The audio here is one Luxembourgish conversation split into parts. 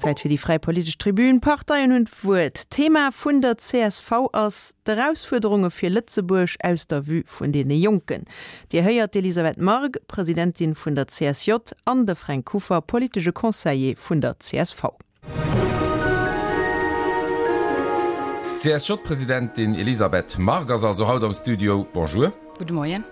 Zäit fir déi fräi politesch Tribün. D'Parteien hunn d'Wuert. D'Thema vun der csv ass d'Erausfuerderunge fir Lëtzebuerg aus der Vue vun deene Jonken. Dir héiert d'Elisabeth Margue, Presidentin vun der CSJ, an de Fränk Kuffer, politesche Conseiller vun der csv. D'CSJ-Presidentin Elisabeth Margue ass also haut am Studio. Bonjour. Gudde Moien.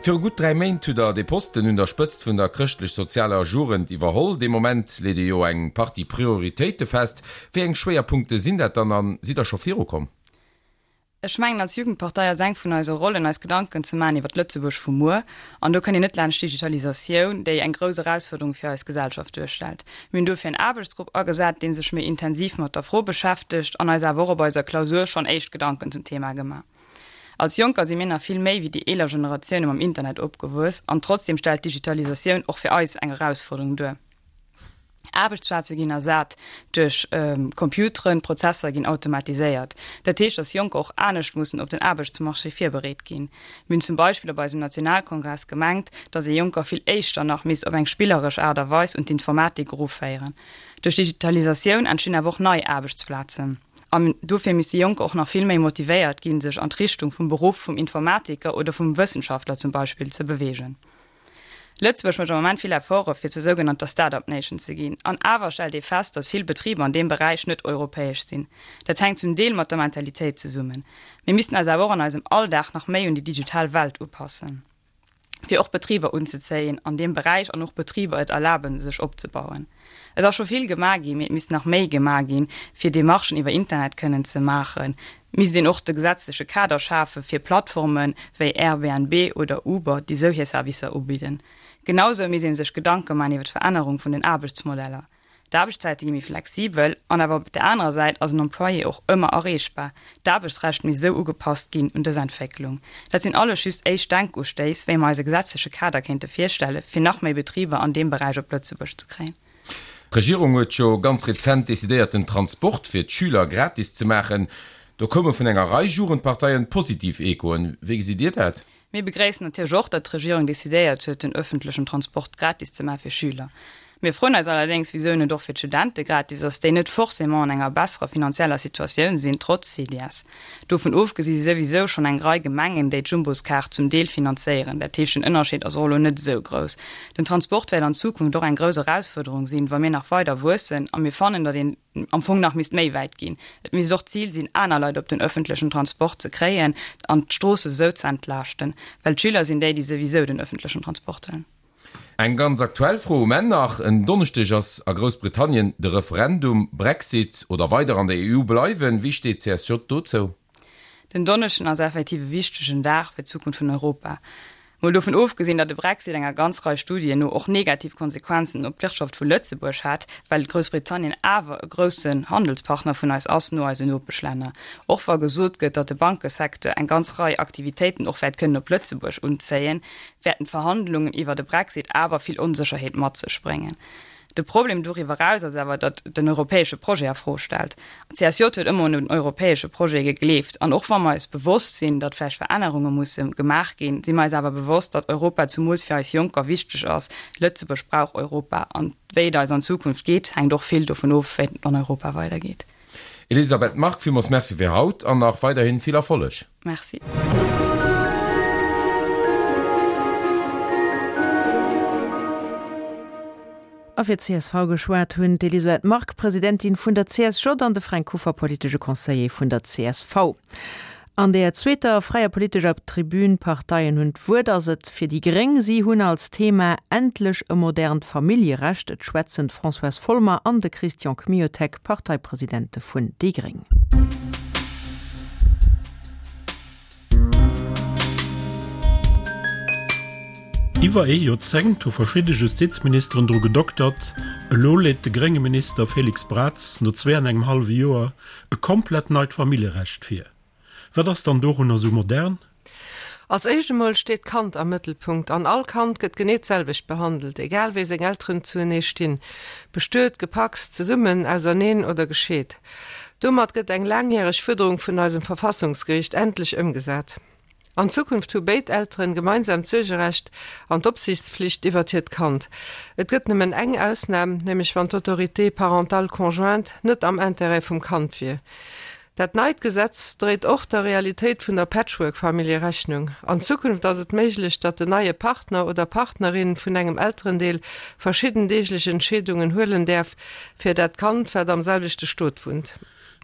Viru gutt 3 Méint hutt Der dee Posten un der Spëtzt vun der chrëschtlech-sozialer Jugend iwwerholl. Dee Moment leet ee jo eng Partie Prioritéite fest. Wéi eng Schwéierpunkte sinn dat dann a sidd Der scho virukomm? Ech mengen, als Jugendpartei ass eng vun eise Rollen, eis Gedanken ze maachen iwwer d'Lëtzebuerg vu muer. An do kënnt een net laanscht d'Digitalisatioun, déi eng grouss Erausfuerderung fir eis Gesellschaft duerstellt. Mir hunn dofir en Aarbechtsgrupp agesat, dee sech méi intensiv mat der Fro beschäftegt an eis awer och op eiser Klausur schonn éischt Gedanken zum Thema gemaach. Als Jonker si mir nach vill méi wéi déi eeler Generatioune mam Internet opgewuess an trotzdem stellt d'Digitalisatioun och fir eis eng Erausfuerderung duer. Aarbechtsplaze ginn ersat duerch Computeren, Prozesser ginn automatiséiert. Dat heescht, datt Jonker och anescht mussen op den Aarbechtsmarché virbereet ginn. Mir hunn zum Beispill op eisem Nationalkongress gemengt, datt ee Jonker vill éischter nach misst op eng spilleresch Aart a Weis un d'Informatik eruféieren. Duerch d'Digitalisatioun entstinn awer och nei Aarbechtsplazen. An dofir misste Jonker och nach vill méi motivéiert ginn, sech an d'Richtung vum Beruff vum Informatiker oder vum Wëssenschaftler zum Beispill ze beweegen. Lëtzebuerg mécht am Moment vill Efforte fir zur sougenannter Start-up Nation ze ginn. An awer stellt ee fest, datt vill Betriber an deem Beräich net europäesch sinn. Dat hänkt zum Deel mat der Mentalitéit zesummen. Mir missten eis awer och an eisem Alldag nach méi un déi digital Welt upassen, fir och Betriber unzezéien an deem Beräich an och Betriber et erlaben, sech opzebauen. Et ass scho vill gemaach ginn, mee et misst nach méi gemaach ginn, fir Demarchen iwwer Internet kënnen ze maachen. Et misst een och de gesetzleche Kader schafe fir Plattforme wéi Airbnb oder Uber, déi sou hir Servicer ubidden. Genau sou misst ee sech Gedanke maachen iwwer d'Verännerung vun den Aarbechtsmodeller. D'Aarbechtszäite gi méi flexibel an awer op der anerer Säit ass en Employé och ëmmer erreechbar. D'Aarbechtsrecht misst esou ugepasst ginn un dës Entwécklung. Dat sinn alles just éischt Denkustéiss, wéi mer eis e gesetzleche Kader kéinte virstelle fir nach méi Betriber an deem Beräich op Lëtzebuerg ze kréien. D'Regierung huet jo ganz rezent decidéiert den Transport fir d'Schüler gratis ze maachen. Do koume vun enger Rei Jugendparteien positiv Echoen. Wéi gesitt Dir dat? Mir begréissen natierlech och, datt d'Regierung decidéiert huet, den öffentlechen Transport gratis ze maache fir Schüler. Mir froen eis allerdéngs, wisou en net och fir d'Studente gratis ass, déi net forcément an enger besserer finanzieller Situatioun sinn, trotz CDS. Dovun ofgesi si souwisou schonn eng Rei Gemengen, déi d'Jumboskaart zum Deel finanzéieren. Dat heescht, den Ënnerscheed ass och elo net esou grouss. Den Transport wäert an Zukunft och eng grouss Erausfuerderung sinn, wa mir nach weider wuessen. A mir fannen, datt een am Fong nach misst méi wäit ginn. Et misst och d'Zil sinn, aner Leit op den öffentlechen Transport ze kréien an d'Stroosse sou ze entlaaschten, well d'Schüler sinn déi, déi souwisou den öffentlechen Transport huelen. Eng ganz aktuell Fro um Enn nach, En Donneschdeg ass a Groussbritannien de Referendum, Brexit oder weider an der EU bleiwen. Wéi steet d'CSJ dozou? Den Donneschden ass effektiv e wichtegen Dag fir d'Zukunft vun Europa. Mol dovun ofgesinn, datt de Brexit enger ganz Rei Studien no och negativ Konsequenzen op d'Wirtschaft vu Lëtzebuerg hätt, well Groussbritannien awer e groussen Handelspartner vun eis ass, no eisen Nopeschlänner. Och wa gesot gëtt, datt de Bankesecteur eng ganz Rei Aktivitéiten och wäert kënnen op Lëtzebuerg unzéien, wäerten d'Verhandlungen iwwer e Brexit awer vill Onsécherheet mat sech bréngen. De Problem doriwwer eraus ass awer, datt den europäesche Projet a Fro stellt. D'CSJ huet ëmmer un den europäesche Projet gegleeft. An och wa mer eis bewosst sinn, datt vläicht Verännerunge musse gemaach ginn, si mer eis awer bewosst, datt Europa zumools fir eis Jonker wichteg ass. Lëtzebuerg brauch Europa. An wéi et eis an Zukunft geet, hänkt och vill dovun of, wéi et an Europa weidergeet. Elisabeth Margue, villmools Merci fir haut an nach weiderhin vill Erfolleg. Merci. A fir d'CSV geschwat hunn d'Elisabeth Margue, Presidentin vun der CSJ, an de Fränk Kuffer, politesche Conseiller vun der csv. An der zweeter fräier politescher Tribün Parteien hunn d'Wuert ass et fir déi gréng. Si hunn als Thema Endlech e modernt Familljerecht. Et schwätzen d'Françoise Folmer an de Christian Kmiotek, Parteipresidente vun déi gréng. Iwwer ee Joerzéngt hu verschidde Justizministeren dru gedoktert, elo leet de grénge Minister Félix Braz no zwee an engem hallwe Joer e komplett neit Familljerecht vir. Wat ass dann dorunner sou modern? Als éischt emol steet d'Kand am Mëttelpunkt an all Kand gëtt genee d'selwecht behandelt, egal wéi seng Elteren zuenee stinn, bestuet, gepacst, zesummen, auserneen oder gescheet. Domat gëtt eng laangjäreg Fuerderung vun eisem Verfassungsgeriicht endlech ëmgesat. An Zukunft hu béid Elteren gemeinsam d'Suergerecht an d'Opsiichtspflicht iwwert hiert Kand. Et gëtt nëmmen eng Ausnam, nämlech wann d'Autorité parentale conjointe net am Intérêt vum Kand wier. Dat neit Gesetz dréit och der Realitéit vun der Patchwork-Famillje Rechnung. An Zukunft ass et méiglech, datt den neie Partner oder Partnerin vun engem Elterendeel verschidden deeglech Entscheedungen huelen däerf fir dat Kand, wat am selwechte Stot wunnt.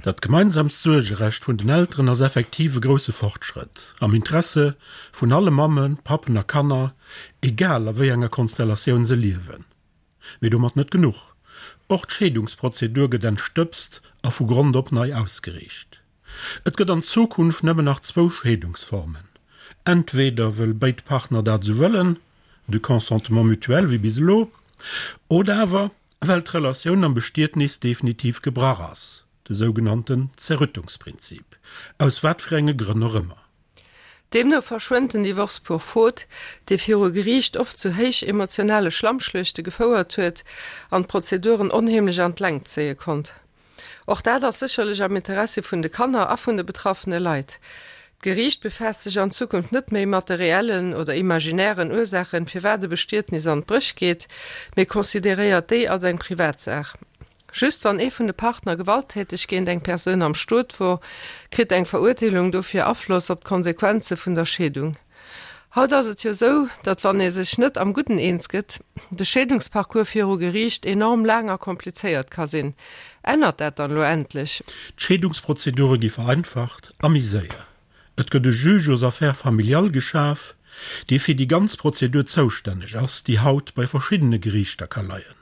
Dat gemeinsamt Suergerecht vun den Elteren ass effektiv e grousse Fortschrëtt am Interesse vun alle Mammen, Pappen a Kanner, egal a wéi enger Konstellatioun se liewen. Mee domat net genuch, och d'Scheedungsprozedur gëtt entstëbst a vu Grond op nei ausgeriicht. Et gëtt an Zukunft nëmmen nach zwou Scheedungsformen, entweder wëll béid Partner dat esou wëllen, de Consentement mutuel wéi bis elo, oder awer well d'Relatioun am Bestietnis definitiv gebrach ass, de sougenannten Zerrüttungsprinzip, aus wat fir enge Grënn och ëmmer. Deemno verschwënnt den Divorce pour faute, dee viru Geriicht oft zu héich emotionale Schlammschluechte gefouert huet an d'Prozeduren onheemlech an d'Längt zéie konnt. Och dat ass sécherlech am Interessi vun de Kanner a vun de betraffene Leit. D'Geriicht befaasst sech an Zukunft net méi mat de reellen oder imaginären Ursaachen, firwat e Bestietnis an d'Bréch geet, mee consideréiert déi als eng Privatsaach. Just wann ee vun de Partner gewalttäteg géint eng Persoun am Stot wor, kritt eng Verurteelung dofir Afloss op d'Konsequenze vun der Scheedung. Haut ass et jo sou, datt wann ee sech net am Gudden eens gëtt, de Scheedungsparcours viru Geriicht enorm laang a komplizéiert ka sinn. Ännert dat dann elo endlech? D'Scheedungsprozedure gi vereinfacht a méi séier. Et gëtt e Juge aux affaires familiales geschaf, dee fir déi ganz Prozedur zoustänneg ass, déi haut bei verschiddene Geriichter ka leien.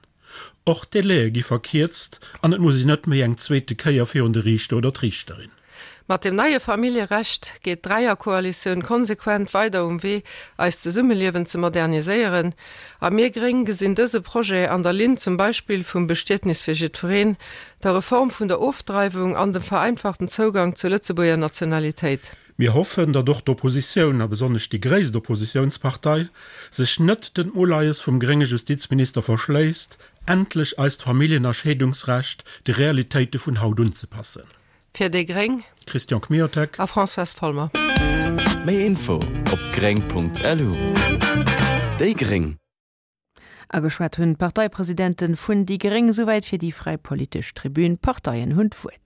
Och d'Délaië gi verkierzt an et muss een net méi eng zweete Kéier virun de Riichter oder d'Riichterin. Mat dem neie Familljerecht geet d'Dräierkoalitioun konsequent weider um Wee, eist Zesummeliewen ze moderniséieren. A mir Gréng gesinn dëse Projet an der Linn zum Beispill vum Bestietnis fir jiddwereen, der Reform vun der Ofdreiwung an dem vereinfachten Zougang zur Lëtzebuerger Nationalitéit. Mir hoffen, datt och d'Oppositioun, a besonnesch déi gréisst Oppositiounspartei, sech net den Uleies vum grénge Justizminister verschléisst, endlech eist Familljen a Scheedungsrecht de Realitéite vun haut unzepassen. Fir déi gréng. Christian Kmiotek. A Françoise Folmer. Méi Info op gréng.lu. Déi gréng. Ageschwat hunn d'Parteipresidenten vun déi gréng. Souwäit fir déi fräi politesch Tribün. D'Parteien hunn d'Wuert.